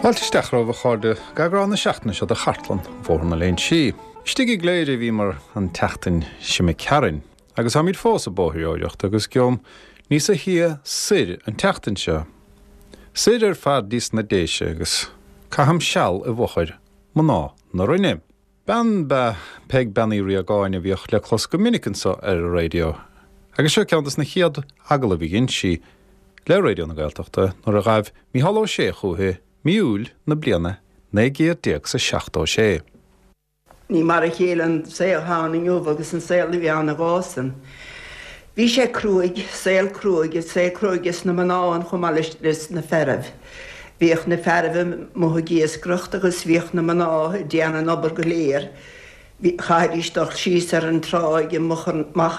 Fáilte isteach romhaibh a chairde go eagrán na seachtaine seo de Chartlann Bhóthar na Léinsí. Istigh i gCléire a bhíomar an tseachtain seo imigh tharainn agus táimid fós ag bóithreoireacht agus gheobham níosa shia soir an tseachtain seo. Soir ar fad dtí sna Déise agus caithim seal i bhfochair mná na Rinne. Bean b'ea Peig Bean Uí Riagáin a bhíodh le clos go minic anso ar an raidió agus seo ceann dos na chéad agallaimh a dhein sí le Raidió na Gaeltachta nuair a ghaibh Mícheál Ó Sé chúithi mí Iúil na bliana 1976. Ní mar a chéile an saol atá ann inniu agus an saol a bhí ann ag an am san. Bhí sé cruaidh, saol cruaidh, saol cruaidh ag na mná ann chomh maith leis na fearaibh. Bhíodh na fearaibh amuigh ag iascaireacht agus bhíodh na mná ag déanamh an obair go léir. Chaithfidís dul síos ar an tráigh amach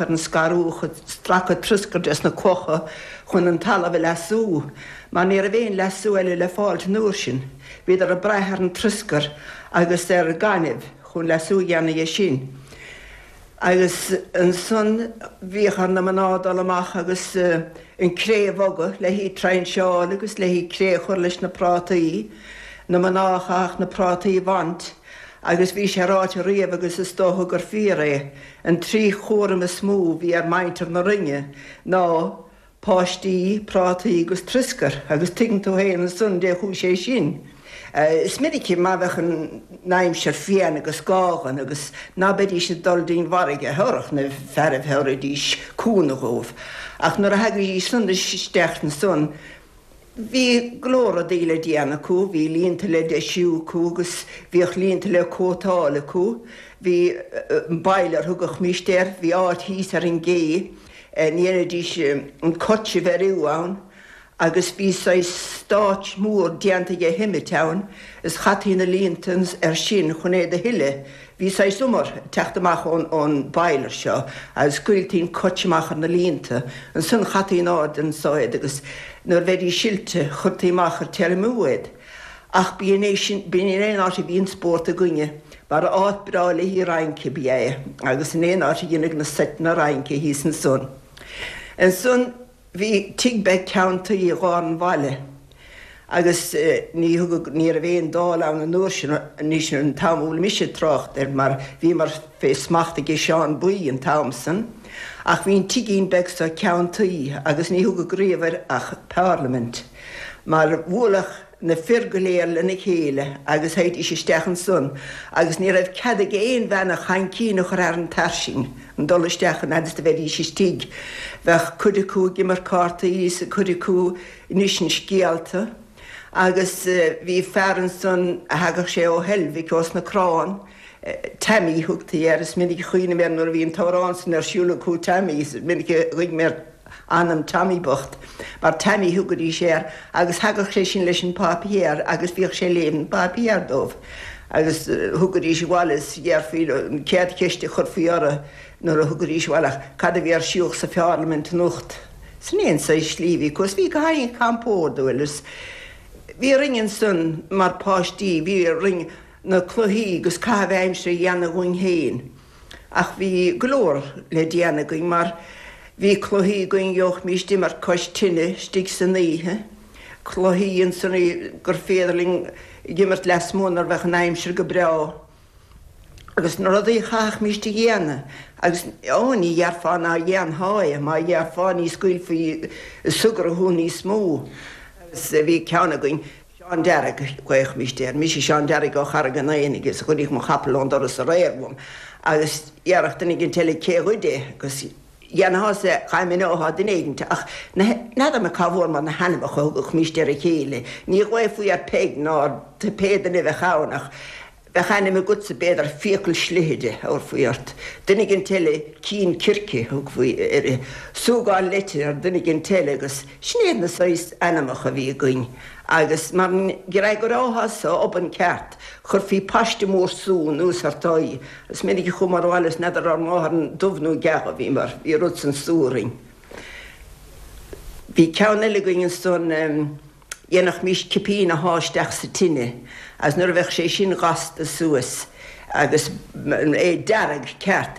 ar an scarúch ag stracadh troscair des na clocha chun an talamh a leasú, mar ní raibh aon leasú eile le fáilt an uair sin. Bhíodar ag brath ar an troscar agus ar gaineamh chun leasú a dhéanamh dhe sin. Agus ansan bhíodh ar na mná dul amach agus an cré a bhogadh le hí trainseáil agus le hí cré a chur leis na prátaí. Na mná a chaithfeadh na prátaí a bhaint agus bhí sé ráite riamh agus is dócha gur fíor é, an trí chúram is mó a bhí ar mhuintir na Rinne ná Páistí, prátaí agus troscar agus tuigeann tú féin ansan dé chuaigh sé sin. Is minic má bheadh an aimsir fiáin agus gághan agus ná beidís ag dul dtí'n bhfarraige thabharfadh na fearaibh thabharfaidís cúnamh dhóibh. Ach nuair a thagaidís san isteach ansan bhí go leor rudaí le déanamh acu, bhí líonta le deisiú acu agus bhíodh líonta le cótáil acu. Bhí an boiler thugadhmíst air, bhí áit thíos ar an gcé ndéanaidís an coit a bheiriú ann agus bhí saghas stáitse mór déanta dhe shimit ann is chaití na líonta air sin chun é do shileadh. Bhí saghas umar ag teacht amach ón boiler seo agus scaoiltí an coit amach ar na líonta. Ansan chaití in airde anso iad agus nuair a bheidís silte chuirtí amach ar tiriomú iad. Ach b'in é sin, b'in é an áit a bhí an spórt againne, mar áit breá le haghaidh rince ab ea é, agus in aon áit a dhéanadh na seiteanna rince thíos ansan. Ansan bhí tigh beag ceann tuí i lár an bhaile, agus ní thugadh, ní raibh aon Dáil ann an uair sin, anois an t-am a bhfuil mise ag trácht air, mar bhíomar fé smacht aige Seán Buí an t-am san, ach bhí an tigín beag so ceann tuí agus ní thugadh riamh air ach Parliament. Mar bhuaileadh na fir go léir lena chéile agus théidís isteach ansan agus ní raibh cead ag aon bhean a chaincín a chur thar an tairsing an dul isteach an fhad is do bheidís istigh. Bheadh cuid acu ag imirt cártaí is cuid acu ag insint scéalta agus bhí fear ansan a thagadh sé ó Heilbhic ós na Crann, Tammy thugtaí air, is minic a chuimhním air nuair a bhí an t-amhrán san ar siúl acu Tammy, is minic a ghuigh mé ar anam Tommy bocht, mar Tammy thugaidís air agus thagadh sé sin leis an páipéar agus bhíodh sé ag léamh an pháipéar dóibh agus thugaidís abhaile is dhéarfaí leo an chéad cheist a chuirfí orthu nuair a thugaidís abhaile ach cad a bhí ar siúl sa pharlaimint anocht. Sin é an saghas slí a bhí acu is bhí go han-chompordúil is bhí orainn ansan mar páistí, bhí orainn na cluichí agus caitheamh aimsire a dhéanamh dhúinn féin. Ach bhí go leor le déanamh againn mar bhí cluichí againn gheobhaimíst imirt cois tine istigh san oíche, cluichí ansan gur féidir linn ag imirt lasmuigh nuair a bheadh an aimsir go breá agus na rudaí a chaithfimíst a dhéanamh agus ó ní dhéarfá ná dhéanfá é, má dhéarfá ní scaoilfí súgradh thú níos mó. Agus bhí ceann againn. Seán Dearg, ghlaofaimíst air. Mise Seán Dearg ó Charraig an Aonaigh is ghoideadh mo chapall ón doras aréir uaim agus dhéarfadh duine éigint eile cé ghoid é agus dhéanfá-sa dhá mineofá duine éigint ach n'fheadar mé cá bhfuair mar na hainmneacha a thugadhmíst ar a chéile. Ní ghlaofaí ar Peig ná ar pé duine a bheadh ann ach Bheadh ainm agatsa, b'fhéidir, Fiacail Slighe a thabharfaí ort, duine éigint eile Cinn Circe a thugfaí uirthi, Súgán Leite ar duine éigint eile agus sin iad na saghas ainmneacha a bhí againn agus mar dh'fhreagrófá-sa obann ceart, chuirfí paiste mór sú anuas ort aghaidh. Is minic a chuamar abhaile is n'fheadar ár máthair an dubh nó geal a bhíomar, bhí rud san sú orainn. Bhí ceann eile againn ansan. Dhéanfaimis cipín a shá isteach sa tine agus nuair a bheadh sé sin gasta suas agus é dearg ceart,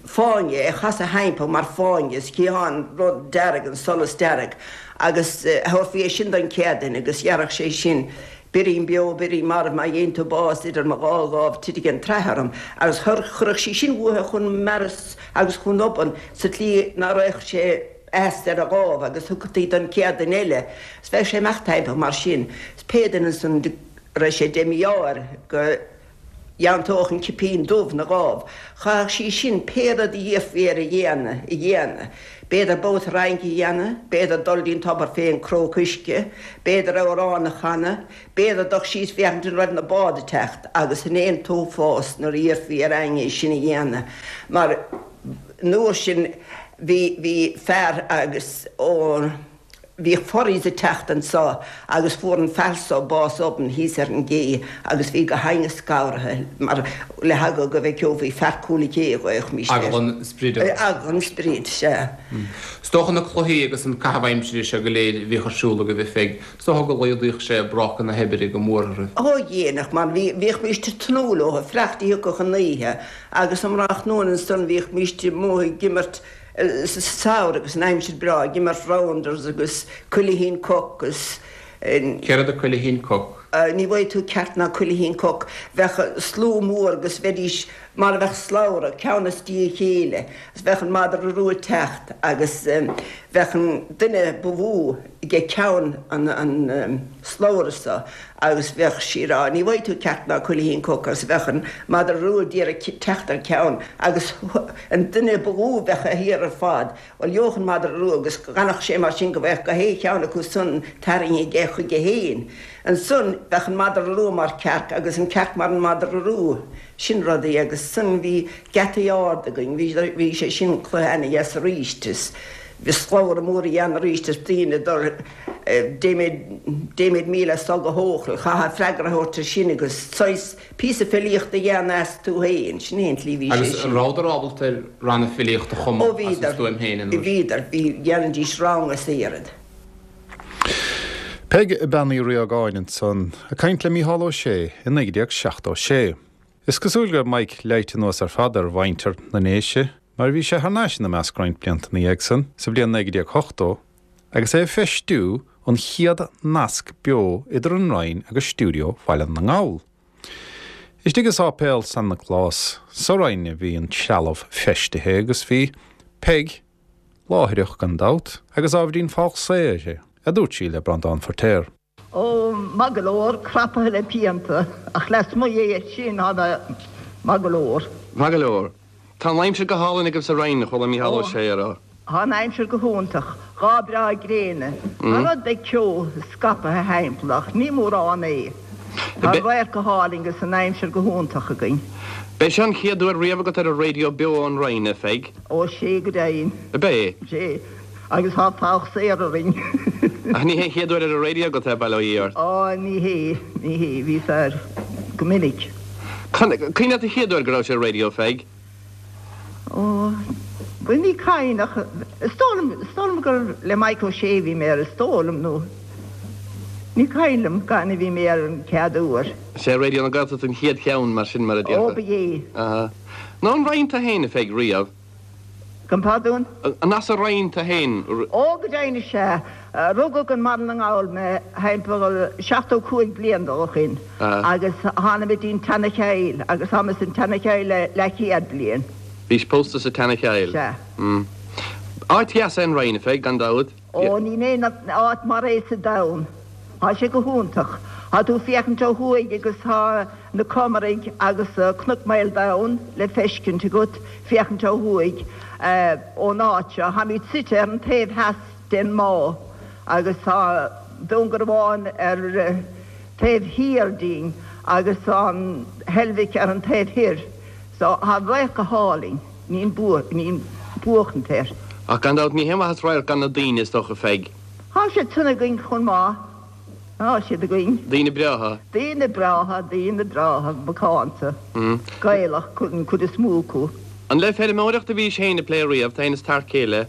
fáinne, é a chasadh thimpeall mar fáinne is chítheá an rud dearg, an solas dearg agus thabharfaí é sin don chéad duine agus dhéarfadh sé sin. Birín beo, birín marbh, má gheibheann tú bás idir mo dhá dhámh titfidh an tsraith orm. Agus chuirfeadh sí sin uaithe chun mearas agus chun obann sa tslí ná raghadh sé as ar a dhámh agus thugtaí don chéad duine eile. 'S bheadh sé ag imeacht timpeall mar sin. 'S pé duine ansan a raibh sé de mhí-ádh air go dteanntódh an cipín dubh 'na dhámh, chaithfeadh sí sin pé rud a d'iarrfaí air a dhéanamh, a dhéanamh. B'fhéidir babhta rince a dhéanamh, b'fhéidir dul dtí'n tobar fén cróc uisce, b'fhéidir amhrán a chanadh, b'fhéidir dul síos féachaint an raibh na báid ag teacht agus sin é an t-uafás nuair a d'iarrfaí ar éinne é sin a dhéanamh mar an uair sin bhí, bhí fear agus ó. Bhíodh ferries ag teacht anso agus fuair an fear so bás obann thíos ar an gcé agus bhí gach éinne scanraithe mar le heagla go bhfeiceofaí fear Cúil an Ché a ghlaochaimis air. Eagla an sprid ort. Eagla an sprid, sea. Is dócha na cluichí agus an caitheamh aimsire seo go léir a bhíodh ar siúl agaibh a Pheig, is dócha go laghdaíodh sé bráca na hoibre go mór oraibh. Ó dhéanadh, mar bhí, bhíochmíst ag tnúth leo, fanacht go dtiocfadh an oíche agus um thráthnóna ansan bhíochmíst amuigh ag imirt sa samhradh agus an aimsir breá ag imirt rounders agus cuilithín coc agus. Céard é cuilithín coc? Ní bhfaighidh tú ceart ná cuilithín coc. Bheadh slua mór agus bheidís mar a bheadh slabhra, ceann i ndiaidh a chéile, agus bheadh an madra rua ag teacht agus bheadh an duine ba mhó ag ceann an slabhra so agus bheadh sí ag rá, ní bhfaighidh tú ceart ná cuilithín coc agus bheadh an madra rua d'iarraidh teacht ar ceann agus an duine ba lú bheadh thiar ar fad, bhuel gheobhadh an madra rua agus d'fhanfadh sé mar sin go mbeadh gach aon cheann acu san tarraingthe aige chuige fhéin. Ansan bheadh an madra rua mar cearc agus an cearc mar an madra rua. Sin rudaí agus ansan bhí geataí ard againn, bhí sé sin cluiche ana-dheas aríst is bhí slabhra mór a dhéanamh aríst is daoine ag dul Deimid 1000 as so go hEochaill, chaithfeá freagra a thabhairt ar sin agus saghas píosa filíochta a dhéanamh as tú féin, sin é an tslí bhí sé Agus sin. rabhadar ábalta ar ranna filíochta a Ó chumadh as a bhíodar, stuaim féin an uair sin? bhíodar, bhí, dhéanaidís rang as oiread. Peig Bean Uí Riagáin ansan ag caint le Mícheál Ó Sé i 1976. Is cosúil go raibh Mike leighte anuas ar fad ar mhuintir na nDéise mar bhí sé thar n-ais ina measc roinnt blianta ina dhiaidh san, sa bhliain 1980, agus é ag feistiú an chéad nasc beo idir an Rinn agus stiúideo Bhaile na nGall. Istigh i Sáipéal San Nioclás sa Rinn a bhí an trealamh feistithe agus bhí Peig láithreach gan dabht agus ábhairín falsa uirthi, a dúirt sí le Breandán Feirtéar. Ó, maith go leor, crapaithe le pianta, ach lasmuigh dhe sin, tá mé maith go leor. Maith go leor. Tá an aimsir go hálainn agaibh sa Rinn, a chuala Mícheál Ó Sé a rá. Tá an aimsir go hiontach, lá breá gréine. Tá rud beag ceo scapaithe thimpeall ach ní mórán é. Tá an radharc go hálainn agus an aimsir go hiontach againn. B'é seo an chéad uair riamh agat ar an raidió beo ón Rinn, a Pheig? Ó, sea go deimhin. Ab é? Sea. Agus tá fogha saor orainn. Ach ní hé an chéad uair ar an raidió agat é, bail ó Dhia ort. Á, ní hé, ní hé, bhíos air go minic. Cuimhin leat an chéad uair go rabhais ar an raidió, Pheig? Ó, bhuel, ní cuimhin ach is dóigh liom, is dóigh liom gur le Mike Ó Sé a bhí mé air, is dóigh liom, nó ní cuimhin liom cathain a bhí mé air an chéad uair. Sé Raidió na Gaeltachta an chéad cheann, mar sin, mar a déarfá. Ó, ba é. Aha. Nó an Rinn tú fhéin, a Pheig, riamh? Gabh mo phardún? An as an Rinn tú fhéin? Ó, go deimhin is ea. Rugadh i mBaile na nGall mé thimpeall 75 bliain ó shin agus tháinig mé dtí'n tSeana-Chill agus tá mé san tSeana-Chill le leathchéad bliain. Bhís pósta sa tSeana-Chill? Sea. Áit dheas é an Rinn, a Pheig, gan dabht. Ó, níl aon áit mar é sa domhan. Tá sé go hiontach. Tá tú ag féachaint ó thuaidh agus tá na Comaraigh agus Cnoc Maoldomhain le feiscint agat féachaint ó thuaidh ón áit seo. Táimid suite ar an taobh theas den mbá agus tá Dún Garbhán ar taobh thiar dínn agus an Heilbhic ar an taobh thoir. So tá an radharc go hálainn. Níl buachaint air. Ach gan dabht ní haon mhaitheas radharc gan na daoine, is dócha, Pheig. Tá siad san againn chomh maith. Tá siad againn. Daoine breátha. Daoine breátha, daoine breátha, macánta, Gaelach an chuid is mó acu. An le feirmeoireacht a bhís féin ag plé riamh, tú féin is t'fhear céile?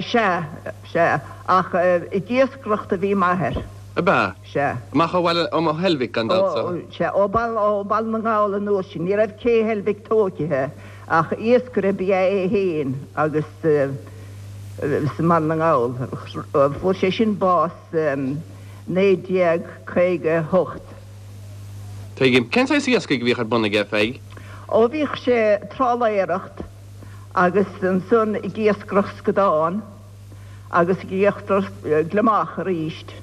Sea, sea, ach ag iascaireacht a bhí m'athair. Ab ea? Sea. Amach ó bhaile, ó Heilbhic, gan dabht, so. Sea, ó Bhaile na nGall an uair sin. Ní raibh cé Heilbhic tóigthe ach iascaire ba ea é féin agus sa mBaile na nGall. Fuair sé sin bás. 1958. Tuigim. Cén saghas iascaigh a bhíodh ar bun aige, a Pheig? Ó bhíodh sé trálaeireacht agus ansan ag iascaireacht scadán agus ag iascaireacht gliomach aríst.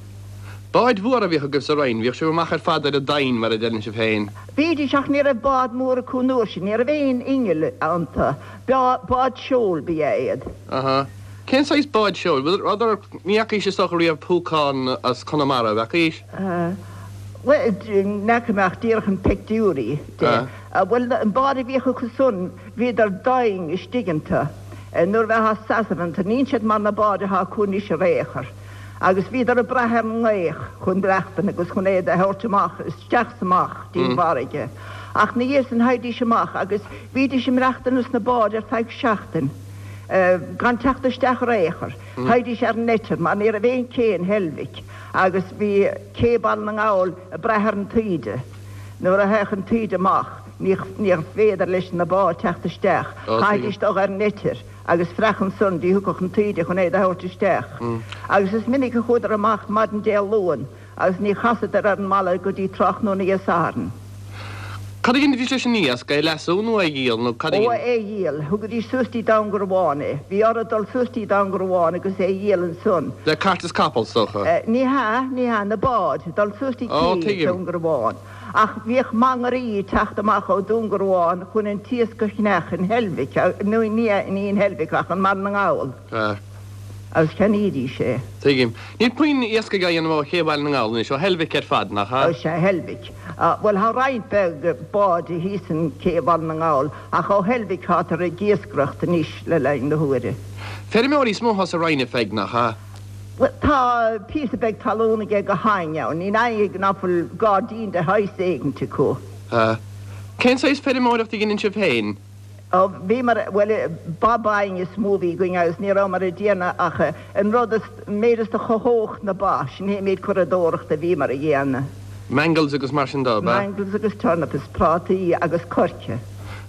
Báid mhóra a bhíodh agaibh sa Rinn, bhíodh sibh amach ar fad ar an domhain, mar a deireann sibh féin. Bhídís, ach ní raibh bád mór acu an uair sin, ní raibh aon inneall iontu, bád seoil ba ea iad. Aha. Cén saghas báid seoil? Bhfuil, ní fhacaís is dócha riamh púcán as Conamara, an bhfeacaís? Bhuel, ní fhaca mé ach díreach an peictiúirí de. Bhuel, an bád a bhíodh acu san, bhíodar doimhin istigh iontu nuair a bheifeá ag seasamh iontu. Níl siad mar na báid atá acu anois ar aon chor. Agus bhíodar ag brath ar an ngaoth chun maireachtaint agus chun iad a thabhairt amach, isteach is amach dtí'n bhfarraige. Ach 'na dhiaidh san theighdís amach agus bhídís ag maireachtaint ins na báid ar feadh seachtain gan teacht isteach ar aon chor. Theighdís ar an eitir mar ní raibh aon cé in Heilbhic agus bhí cé Baile na nGall ag brath ar an taoide. Nuair a théadh an taoide amach níorbh féidir leis na báid teacht isteach. Chaithfidís dul ar an eitir agus freach ansan dtí thiocfadh an taoide chun iad a thabhairt isteach. Agus is minic a chuadar amach maidin Dé Luain agus ní chasadar ar an mbaile go dtí tráthnóna Dé Sathairn. Cad a dheinidís leis an iasc? É a leasú nó é a dhíol nó cad a Ó, é a dhíol. Thugaidís suas dtí Dún Garbhán é. Bhí orthu dul suas dtí Dún Garbhán agus é a dhíol ansan. Le cairt is capall, is dócha. Ní hea, ní hea, na báid, dul suas dtí cé Dún Garbhán. Ach bhíodh mangairí ag teacht amach ó Dún Garbhán chun an t-iasc a cheannach in Heilbhic, nó ní in Heilbhic ach i mBaile na nGall. Agus cheannaídís é. Tuigim. Níl puinn iascaigh á dhéanamh ó ché Bhaile na nGall anois, ó Heilbhic ar fad, nach ea? Ó sea, Heilbhic. Bhuel, tá roinnt bheag báid thíos in cé Bhaile na nGall, ach ó Heilbhic tátar ag iascaireacht anois le linn na huaire. Feirmeoirí is mó atá sa Rinn, a Pheig, nach ea? Bhuel, tá píosa beag talún aige gach éinne ann. Níl éinne ná fuil gairdín de shaghas éigint acu. Sea. Cén saghas feirmeoireacht a dheineann sibh féin? Ó, bhíomar, bhuel, ba bainne is mó a bhí againn agus ní rabhamar ag déanamh ach an rud is, an méid is do chothódh na ba, sin é an méid curadóireachta a bhíomar a dhéanamh. Mangels agus mar sin de, ab ea? Mangels agus turnips is prátaí agus coirce. An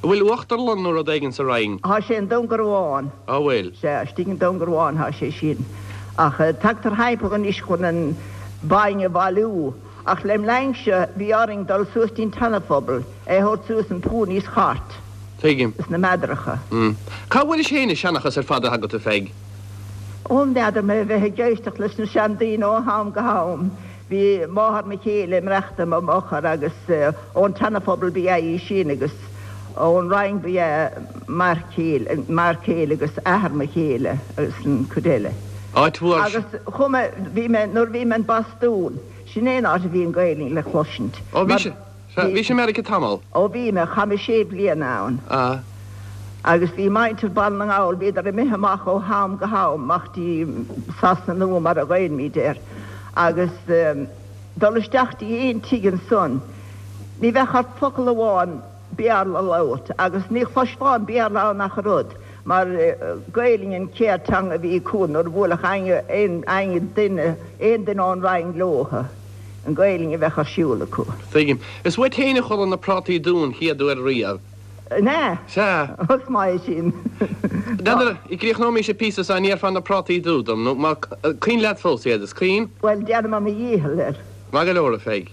bhfuil uachtarlann nó rud éigin sa Rinn? Tá sé i nDún Garbhán. Á bhfuil? Sea, istigh i nDún Garbhán tá sé sin. Ach tagtar thimpeall anois chun an bainne a bhailiú. Ach lem linnse bhí orainn dul suas dtí'n tSeana-Phobal é a thabhairt suas in ponies chart. Tuigim. Is na meadaracha. Cá bhfuairis féin an seanchas ar fad atá agat, a Pheig? Ó, n'fheadar mé, bheith ag éisteacht leis na seandaoine ó am go ham. Bhí máthair mo chéile ag maireachtaint i m'fhochair agus ón tSeana-Phobal ba ea í sin agus ón Rinn ba ea m'fhear céile, m'fhear céile agus athair mo chéile agus an cuid eile. Áit mhór. Agus chuaigh mé, bhí mé, nuair a bhí mé in Bostún, sin é an áit a bhí an Ghaelainn le cloisint. Ó bhí sé, bhí sé i Meiriceá tamall. Ó bhí mé, chaith mé sé bliana ann. Ah. Agus bhí muintir Baile na nGall, bhíodar imithe amach ó ham go ham, amach dtí Sasana Nua mar a ghlaoimid air. Agus dul isteach dtí aon tigh ansan, ní bheadh ort focal amháin Béarla a labhairt, agus ní chloisfeá an Béarla ann ach oiread, mar Gaelainn an chéad teanga a bhí acu nuair a bhuailfeadh aon duine, aon duine ón Rinn leothu, an Ghaelainn a bheadh ar siúl acu. Tuigim. Is uait féin a chuala na prátaí dubha an chéad uair riamh. An ea? Sea. Is maith é sin. N'fheadar, gcríochnóimis an píosa seo, an ndéarfá na prátaí dubha dom, nó má, cuimhin leat fós iad, is cuimhin? Bhuel, déanfaidh mé mo dhícheall air. Maith go leor, a Pheig.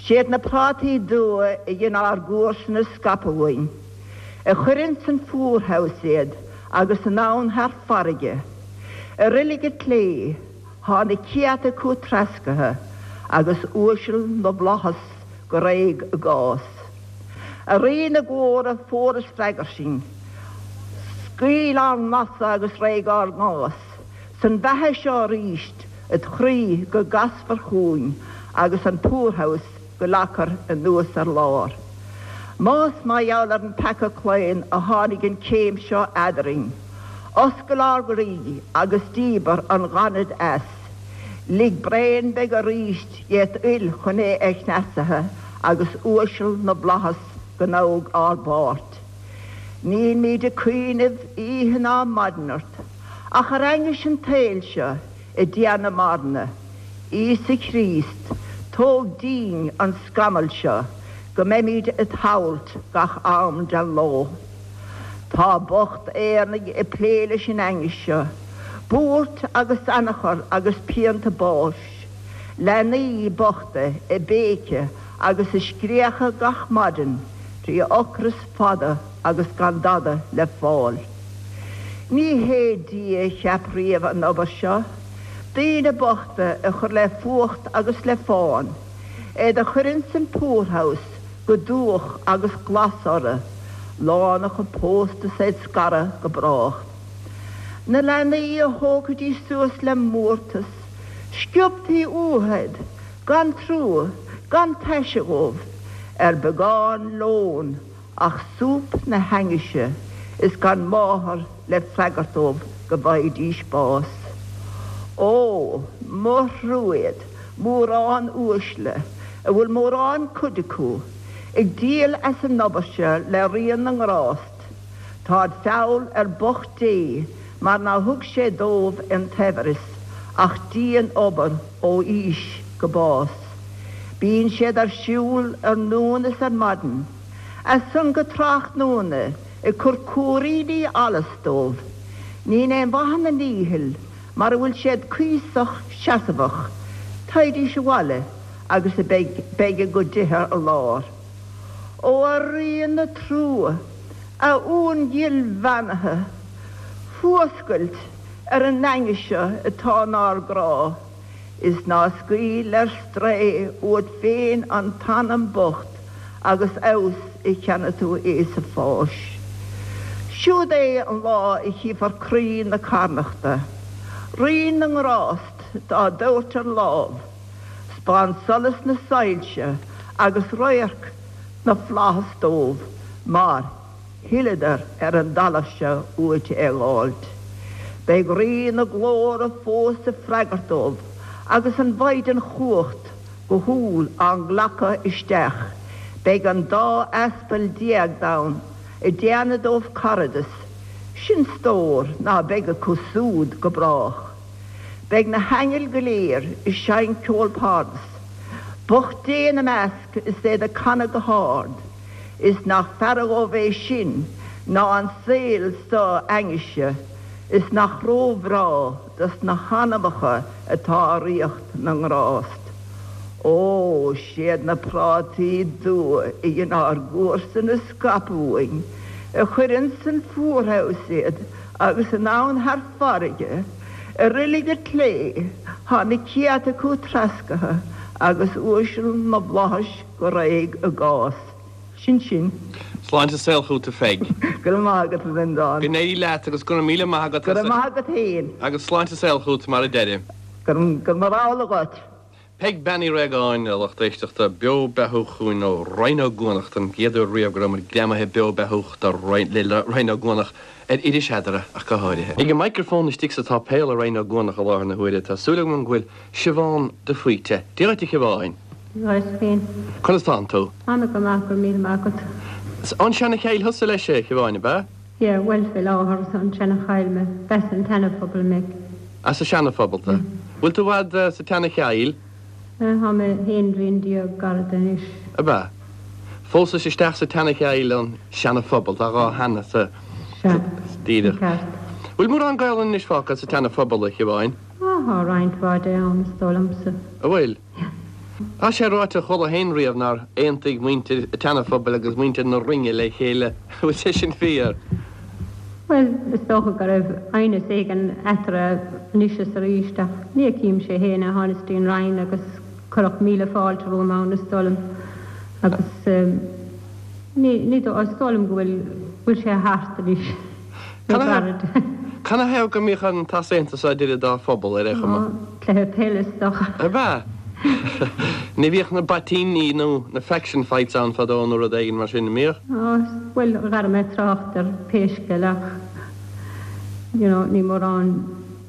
Siad na prátaí dubha a dhein ár gcomharsana scaipeadh uainn, a chuir ins an poorhouse iad agus anonn thar farraige. I roilig an tslé, thá na céadta acu treascartha agus uaisle na bhflaitheas go réidh a gcás. A Rí na glóire, fuar is freagair sinn. Scaoil ár nglasa agus réidh ár gcás. San bheatha seo aríst, id chroí go gcasfar chugainn agus an poorhouse go leagfar anuas ar lár. Más mar gheall ar an peaca claon a tháinig an chéim seo eadarainn, oscail ár gcroí agus díbir an ghainimh as. Lig braon beag aríst dhet fhuil chun é a chneasaithe agus uaisle na bhflaitheas go ngabhadh ár bpáirt. Nílmíd ag cuimhneamh oíche ná maidin ort, ach ar ainghis an tsaoil seo i dtéarnamh marana. Íosa Chríost, tóg dínn an scamall seo go mbeimíd it shamhailt gach am den ló. Tá bocht Éireannaigh ag plé leis an ainghis seo, buairt agus anachar agus pianta báis. Leanaí bochta ag béiceadh agus ag scréachadh gach maidin trí ocras fada agus gan dada le fáil. Ní hé Dia a cheap riamh an obair seo, daoine bochta a chur le fuacht agus le fán, iad a chur ins an poorhouse go dubhach agus glas orthu, lánúineacha pósta 's iad scartha go brách. Na leanaí a thógfaidís suas le mórtas, sciobtaí uathu iad gan trua, gan taise dhóibh, ar beagán lóin ach súp na hainnise is gan máthair le freagairt dóibh go bhfaighidís bás. Ó, mo thrua iad, mórán uaisle, a bhfuil mórán cuid acu, ag díol as an obair seo le Ríon na nGrást. Táid feall ar bocht Dé mar ná thug sé dóibh an tsaibhreas ach dian-obair ó aois go bás. Bíonn siad ar siúl ar nóin is ar maidin, as san go tráthnóna ag cur cúiríní allais dóibh. Níl aon mhaith ina ndícheall mara bhfuil siad cuíosach seasmhach, teighdís abhaile agus a beidh a gcuid dithe ar lár. Ó a Rí na trua, a Uan ghil bheannaithe, fuascailt ar an ainnis seo atá 'nár gcrá, is ná scaoil ar strae uait féin an t-anam bocht agus abhus a cheannaigh tú é sa pháis. Siúd é an lá a chífear croí na carnachta, Rí na nGrást dá dtabhairt ar lámh, 'Spáin solas na soilse agus radharc na bhflaitheas dóibh mar thuilleadar ar an dtalamh seo uait é dh'fháilt. Beidh Rí na Glóire fós ag freagairt dóibh agus an Mhaighdean Chumhacht go humhal á nglacadh isteach. Beidh an dá aspal déag ann ag déanamh dóibh caradas, sin stór ná beidh acu súd go brách. Beidh na haingil go léir ag seinnt ceol pardas, bocht Dé ina measc is iad ag canadh go hard, is nach fearra dhóibh é sin ná an saol so ainnise, is nach ró-bhreá dos na hanamacha atá i ríocht na ngrást. Ó, siad na prátaí dubha a dhein ár gcomharsain a scaipeadh uainn, a chuir ins an poorhouse iad, Agus anonn thar farraige, i roilig an tslé, thá na céadta acu treascartha agus uaisle na bhflaitheas go réidh a gcás. Sin sin. Sláinte is saol chugat a Pheig. Go raibh maith agat a Bhreandáin. Go n-éirí leat agus go raibh míle maith agat Go raibh maith agat féin. Agus sláinte is saol chugat mar a deirim. Go raibh amhlaidh dhuit. Peig Bean Uí Réagáin, a lucht éisteachta, beo beathúch chugainn ó Rinn Ó gCuanach don gcéad uair riamh go raibh muid greamaithe beo beathúch le Rinn Ó gCuanach ar Iris Eadra ach go háirithe. Ag an microphone istigh sa tsáipéal i Rinn Ó gCuanach i láthair na huaire tá súil agam go bhfuil Siobhán de Faoite. Dia dhuit a Shiobháin. Dia dhuit féin. Conas tánn tú? Ana go maith, go raibh míle maith agat. Is ón Seana-Chill thusa leis a Shiobháin, ab ea? Yeah, bhuel fé láthair is ón tSeana-Chill mé, b'as an tSeana-Phobal mé. As an Seana-Phobal tú. Bhfuil tú i bhfad sa tSeana-Chill? Tá mé aon bhliain déag gairid anois. Ab ea? Phósais isteach sa tSeana-Chill ón Seana-Phobal, tá dhá sheana sa. Sea, Díreach. ceart. Bhfuil mórán Gaelainne anois fágtha sa tSeana-Phobal, a Shiobháin? Á, tá roinnt mhaith de ann, is dóigh liomsa. An bhfuil? Tá sé ráite, chuala féin riamh nár aontaigh muintir an tSeana-Phobail agus muintir na Rinne le chéile. An bhfuil sé sin fíor? Bhuel, is dócha go raibh aighneas éigin eatarthu anois is arís, ach ní fheicimse féin é. Thánas dtí an Rinn agus cuireadh míle fáilte romham ann, is dóigh liom, agus ní, ní dóigh, is dóigh liom go bhfuil, bhfuil sé thart anois, nó gairid. Canathaobh go mbíodh an t-easaontas seo idir an dá phobal, ar aon chuma? Cluiche peile is dócha. Ab ea? Ní bhíodh na baitíní nó na faction fights ann fadó nó rud éigin mar sin, an mbíodh? Á, bhuel, dhera mé trácht ar pé scéal ach, you know, ní mórán,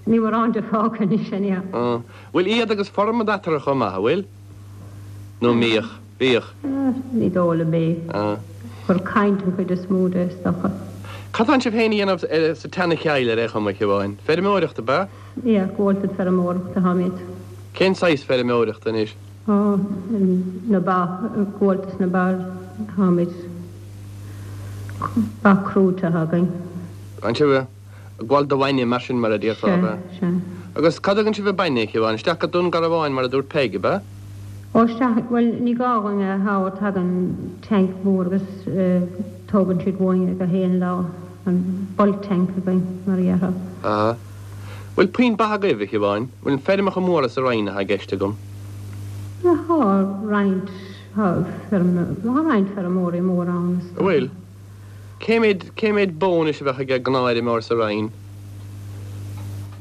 ní mórán de fágtha anois anyhow. Á, bhfuil iad agus formad eatarthu chomh maith, an bhfuil? Nó an mbíodh? Bhíodh. Ní dóigh liom é. Gur caint an chuid is mó de, is dócha. Cad tánn sibh féin a dhéanamh sa tSeana-Chill ar aon chuma, a Shiobháin? Feirmeoireacht, ab ea? Yeah, gabháltas feirmeoireachta táimid. Cén saghas feirmeoireachta anois? Ó, na ba, gabháltas na ba táimid. Ba crúite atá againn. An sibh? Ag gabháil do bhainne, mar sin, mar a déarfá, ab ea? Sea, sea. Agus cá dtugann sibh an bainne, a Shiobhán? Isteach go Dún Garbhán, mar a dúirt Peig, ab ea? Ó, isteach, bhuel, ní gá dhúinn é a thabhairt, tagann tank mór agus tógann siad uainn é gach aon lá, an bulk tank againn, mar a déarfá. Aha. Bhfuil puinn ba agaibh, a Shiobháin? Bhfuil feirmeacha móra sa Rinn atá i gceist agam? Tá roinnt, tá feirm, tá roinnt feirmeoirí móra ann, is dócha. Bhfuil? Cé mhéad, cé mhéad bó anois a bheadh ag gnáthfheirmeoir sa Rinn?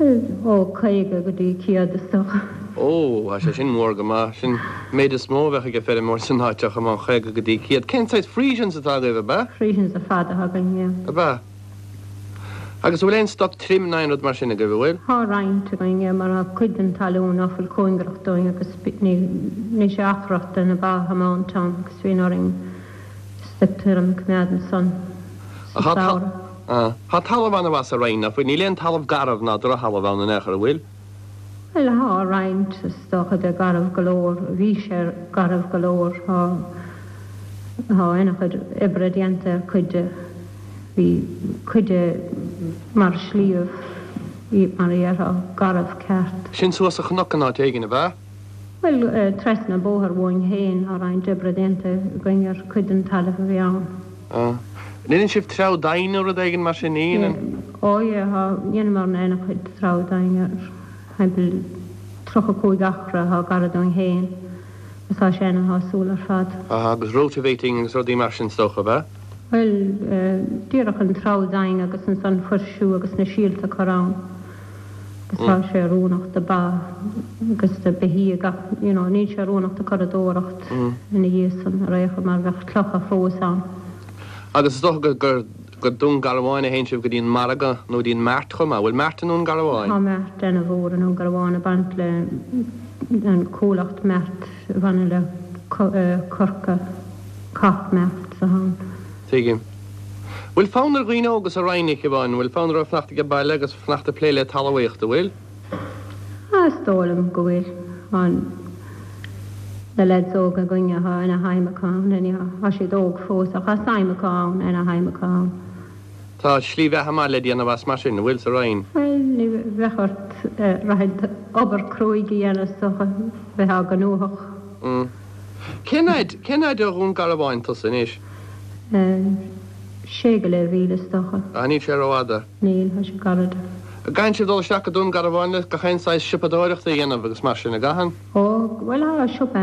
Ó 50 go dtí 100 is dócha. Ó, tá sé sin mór go maith. Sin méid is mó a bheadh ag feirmeoir san áit ach amháin 50 go dtí 100. Cén saghas Friesians atá agaibh, ab ea? Friesians ar fad atá againn, yeah. Ab ea? Agus an bhfuil aon stoc tirim ná aon rud mar sin agaibh, an bhfuil? Tá roinnt againn, yeah, mar tá cuid den talún ná fuil cóngarach dúinn agus ní, níl sé achrach do na ba a thiomáint ann agus bíonn orainn stoc tirim a choimeád ansan sa samhradh. Tá talamh an-mhaith sa Rinn, ná fuil? Níl aon talamh garbh ná drochthalamh ann in aon chor, an bhfuil? Bhuel, tá roinnt, is dócha, de garbh go leor. Bhí sé garbh go leor. Tá, tá ana-chuid oibre déanta ar cuid de. Bhí cuid de mar shliabh, mar a dhéarfá, garbh ceart. Sin suas sa chnoc in áit éigin, ab ea? Bhuel, trasna an bóthar uainn féin, tá roinnt oibre déanta againn ar chuid den talamh a bhí ann. Ah. An ndéanann sibh treabhadh doimhin nó rud éigin mar sin? Ní dhéanann? Ó yeah, tá, dheineamarna ana-chuid treabhadh doimhin ar thimpeall 35 acra atá gar dúinn féin agus tá sé ana-shásúil ar fad. Ah, agus rotavating agus rudaí mar sin is dócha, ab ea? Bhuel, díreach an treabhadh doimhin agus ansan fuirsiú agus na síolta a chur ann agus tá sé oiriúnach do ba agus do beithígh ach you know níl sé oiriúnach do curadóireacht ina dhiaidh san ar aon chor mar bheadh clocha fós ann. Agus is dócha go gur go Dún Garbhán a théann sibh go dtí an margadh nó go dtí an mart chomh maith. Bhfuil mart i nDún Garbhán? Tá mart ana mhór i nDún Garbhán ag baint le an comhlacht mart a bhaineann le Corca Cork Mart atá ann. Tuigim. Bhfuil fonn ar dhaoine óga sa Rinn, a Shiobhán, bhfuil fonn orthu fanacht age baile agus fanacht ag plé le talmhaíocht, an bhfuil? Ah, is dóigh liom go bhfuil. Tá na lads óga againne, tá ana shuim acu ann, anyhow. Tá siad óg fós ach tá suim acu ann, ana shuim acu ann. Tá slí bheatha maith le déanamh as mar sin, an bhfuil, sa Rinn? Bhuel, ní bheadh ort rachaidh obair cruaidh a dhéanamh is dócha, bheifeá gnóthach. Mm. Cén fhaid, cén fhaid ó Dhún Garbhán tusa anois? Sé go leith mhíle is dócha. Ah, níl sé rófhada. Níl, tá sé gairid. An gcaitheann sibh dul isteach go Dún Garbhán le gach aon saghas siopadóireachta a dhéanamh agus mar sin, an gcaitheann? Ó, bhuel, tá siopa,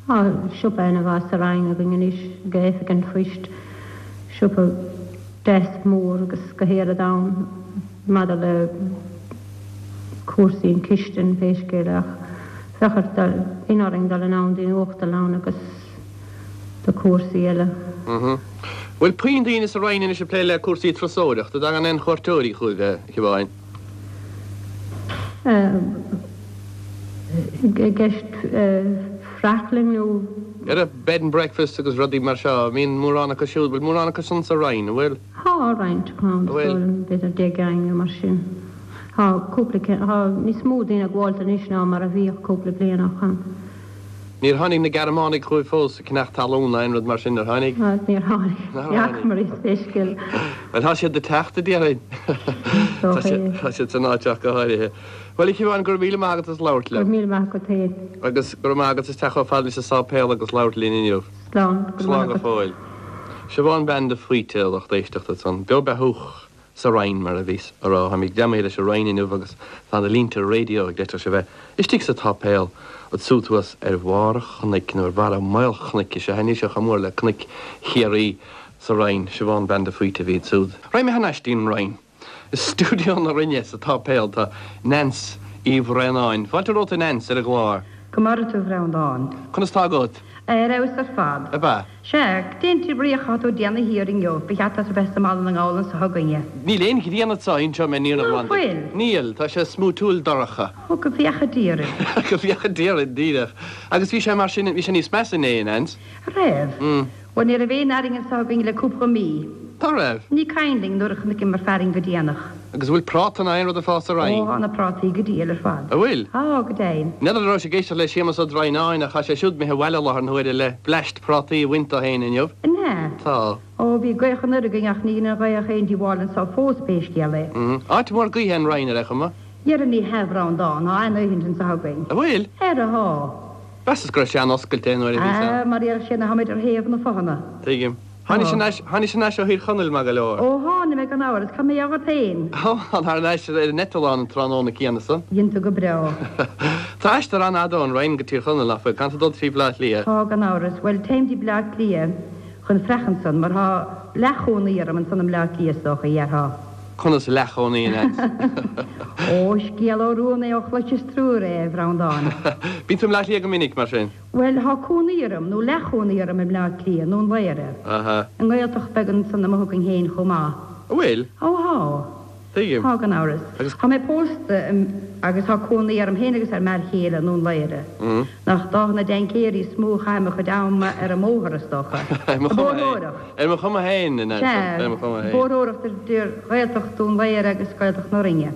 tá siopa ana mhaith sa Rinn againn anois, ag Oifig an Phoist, siopa deas mór agus gach aon rud ann maidir le cúrsaí an chistin pé scéal é ach bheadh ort dul, bíonn orainn dul anonn dtí'n uachtarlann agus do chúrsaí eile. Mhm. Bhfuil puinn daoine sa Rinn anois ag plé le cúrsaí turasóireachta? An dtagann aon chuairteoirí chugaibh, a Shiobháin? I gceist freachlann nó? Ar bed and breakfast agus rudaí mar seo, mbíonn mórán acu siúd, bhfuil mórán acu san sa Rinn, an bhfuil? Tá roinnt acu ann, is dóigh liom, b'fhéidir 10 gceann nó mar sin. Tá cúpla, tá níos mó daoine ag gabháilt anois ná mar a bhíodh cúpla bliain ó shoin. Níor tháinig na Gearmánaigh chugaibh fós ag ceannach talún ná aon rud mar sin, ar tháinig? Níor tháinig. Ní fhacamar iad pé scéal. Bhuel, tá siad ag teacht, a déarfainn. Tá siad san áit ach go háirithe. Bhuel, a Shiobháin, go raibh míle maith agat as labhairt liom. Go raibh míle maith agat féin. Agus go raibh maith agat as teacht chomh fada leis an sáipéal agus labhairt linn inniu. Slán. Go raibh maith agat. Slán go fóill. Siobhán bean de Faoite, a lucht éisteachta ansan. Beo beathúch. sa Rinn, mar a bhíos a rá. Táimid greamaithe leis an Rinn inniu agus tá na línte raidió ag leiteach a bheith istigh sa tsáipéal ansúd thuas ar bharr an chnoic, nó ar bharra maolchnoic is ea, níl sé chomh mór le cnoic Chiarraí sa Rinn. Siobhán Bean de Faoite a bhí ansúd. Raghaidh mé thar n-ais dtí'n Rinn. I stiúideo na Rinne sa tsáipéal tá Nance Uí Bhraonáin. Fáilte romhat a Nance ar an gclár. Go maire tú a Bhreandáin. Conas tá agat? Ar fheabhas ar fad. Ab ea? Sea, cén bhrí atá tú ag déanamh thiar inniu, ba cheart duit a bheith sa mBaile na nGall anso chugainne. Níl aon ghrian anso, inseoidh mé an fhírinne Ná ghlan duit. fuil? Níl, tá sé smúitiúil dorcha. Ó, go bhféacha Dia orainn. Go bhféacha Dia orainn, díreach. Agus bhí sé mar sin, bhí sé níos measa inné, a Nance. Raibh? Bhuel, ní raibh aon fhearainn anso againn le cúpla mí. Ná raibh? Ní cuimhin linn nuair a chonaiceamar fearainn go déanach. Agus an bhfuil práta ná aon rud ag fás sa Rinn? Ó, tá na prátaí go diail ar fad. An bhfuil? Tá, go deimhin. N'fheadar an raibh sé ag éisteacht le Séamus Ó Droighneáin ach tá sé siúd imithe abhaile i láthair na huaire le bleaist prátaí a bhaint dó féin inniu. An ea? ea? Tá. Ó, bhí gaoth anoir againn ach ní dhein an ghaoth aon díobháil anso fós pé scéal é. Áit mhór gaoithe an Rinn ar aon chuma. Dhera ní hea a Bhreandáin, tá an-ghaoth anso againn. An bhfuil? Ara thá. Mheasas go raibh sé an-oscailte nuair a bhíos ann. Á, mar a déarfadh sé ná táimid ar thaobh na fothana. Tuigim. Tháinis thar tháinis thar n-ais ó Thír Chonaill maith go leor. Ó tháinig mé gan amhras, cad mar gheall ort féin? Ó, thar n-ais ar an eitleán an tráthnóna céanna san. Dhein tú go breá. Tá aistear an-fhada ón Rinn go Tír Chonaill, nach bhfuil? Caithfidh tú dul trí Bhleá Cliath. Tá, gan amhras. Bhuel, téim dtí Bleá Cliath chun freach ansan, mar thá leathchónaí orm ansan i mBleá Cliath is dócha, dhéarfá. Conas leathchónaí, a Neans? Ó, scéal ó rún é ó chloiseas triúr é, a Bhreandáin. Bíonn tú i mBleá Cliath go minic, mar sin? Bhuel, thá cónaí orm, nó leathchónaí orm i mBleá Cliath, i nDún Laoghaire. Aha. I nGaeltacht beag ansan amuigh againn féin chomh maith. An bhfuil? Ó, thá. Tuigim. Thá, gan amhras. Agus. Thá mé pósta agus thá cónaí orm féin agus ar m'fhear chéile i Ndún Laoghaire. Nach d'Áth na dTaincéirí is mó a chaithim mo chuid ama ar an mbóthar, is dócha. Ar mo Ag chuma féin. bóthróireacht. Ar mo chuma féin, a Neans. Sea. Ar mo chuma féin. Bóthróireacht idir Ghaeltacht Dún Laoghaire agus Gaeltacht na Rinne.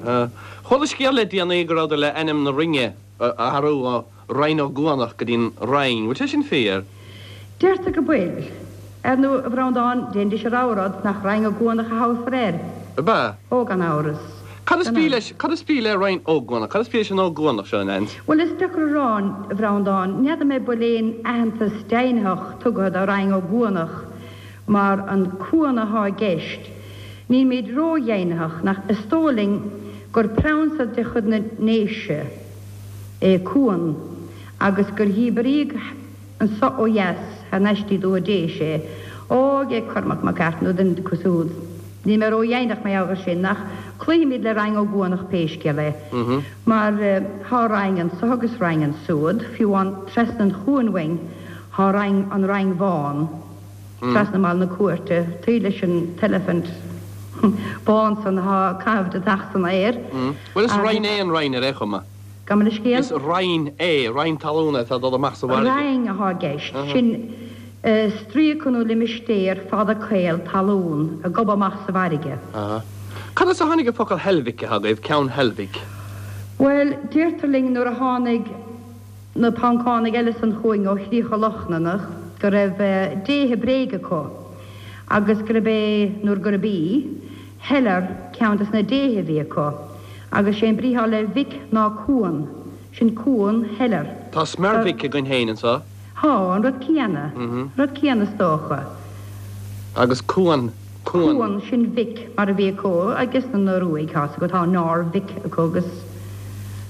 Chuala scéal le déanaí go rabhadar le ainm na Rinne a athrú ó Rinn Ó gCuanach go dtí'n Rinn. Bhfuil sé sin fíor? Deirtear go bhfuil. Ar ndú, a Bhreandáin, déanfaidís a rogha rud, nach Rinn Ó gCuanach a thabharfar air? Ab ea? Ó, gan amhras. Cad is Gan brí amhras. leis, cad is brí le Rinn Ó gCuanach? Cad is brí leis an Ó gCuanach seo, a Neans? Bhuel, is deacair a rá, a Bhreandáin. N'fheadar mé bhfuil aon aitheantas deimhnitheach tugtha do Rinn Ó gCuanach mar an cuan athá i gceist. Nílmid ró-dheimhnitheach, nach, is dóigh linn gur proinsa de chuid na nDéise é Cuan agus gur dhíbríodh anso ó dheas thar n-ais dtí Dúiche Déise é. Ó, ag Cormac Mac Airt nó duine acu siúd. Níl mé ró-dheimhneach mar gheall air sin, ach cloífimid le Rinn Ó gCuanach pé scéal é. Mar thá Rinn anso agus Rinn ansúd, fiú amháin trasna an chuain uainn thá Rinn, an Rinn Bhán. trasna mBaile na Cúirte, taobh leis an t-eilifint bán san athá ag caitheamh deatach san aer. Bhuel, is roinn é an Rinn ar aon chuma. Gabh mo leithscéal? Is roinn é, roinn talún é atá ag dul amach sa bhfarraige. Roinn athá i gceist, sin stríoca nó limistéar fada caol talún ag gobadh amach sa bhfarraige. Cad as a tháinig an focal Heilbhic atá agaibh, Ceann Heilbhic? Bhuel, deirtear linn nuair a tháinig. na Poncánaigh eile san chugainn ó Chríocha Lochlannach go raibh déithe bréige acu agus gurb é, nó gurb í, Heler ceann des na déithe a bhí acu agus sé an brí thá le Vic ná cuan, sin cuan Heler. Tá Smerwick againn féin anso. Thá, an rud céanna, rud céanna is dócha. Agus cuan, cuan. Cuan, sin Vic mar a bhí acu agus na Noruaigh, tá 's agat, tá Norvik acu agus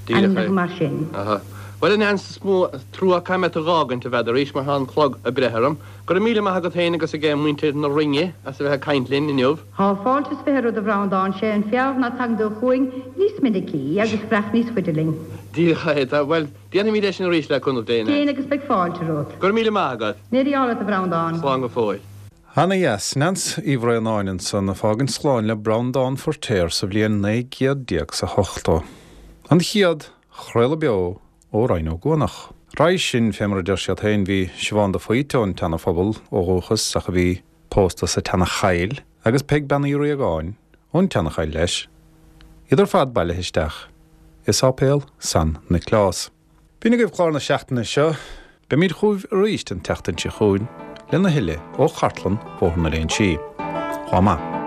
ainmneacha mar sin. Aha. Bhuel, a Neans, is mó trua caithfidh mé tú dh'fhágaint, a mheadar, arís mar tá an clog ag breith orm. Go raibh míle maith agat féin agus ag muintir na Rinne as a bheith ag caint linn inniu. Thá fáilte is 20 romhat a Bhreandáin, sé an fearr ná tagann tú chugainn níos minicí agus freach níos faide linn. Díreach é. Tá, bhuel, déanfaimid é sin arís le cúnamh Dé, a Neans. Déan agus beidh fáilte romhat. Go raibh míle maith agat. Mí-ádh leat a Bhreandáin. Slán go fóill. Ana dheas. Neans Uí Bhraonáin ansan ag fágaint slán le Breandán Feiritéar sa bhliain 19 chéad 's a hochtó. An chéad chraoladh beo ó Rinn Ó gCuanach. Roimhe sin, fé mar a deir siad féin, bhí Siobhán de Faoite ón tSeana-Phobal ó dhúchas ach a bhí pósta sa tSeana-Chaill agus Peig Bean Uí Riagáin ón tSeana-Chaill leis, iad ar fad bailithe isteach i Sáipéal San Nioclás. B'in agaibh clár na seachtaine seo. Beimid chugaibh arís an tseachtain seo chugainn lena thuilleadh ó chartlann Bhóthar na Léinsí. Lá maith.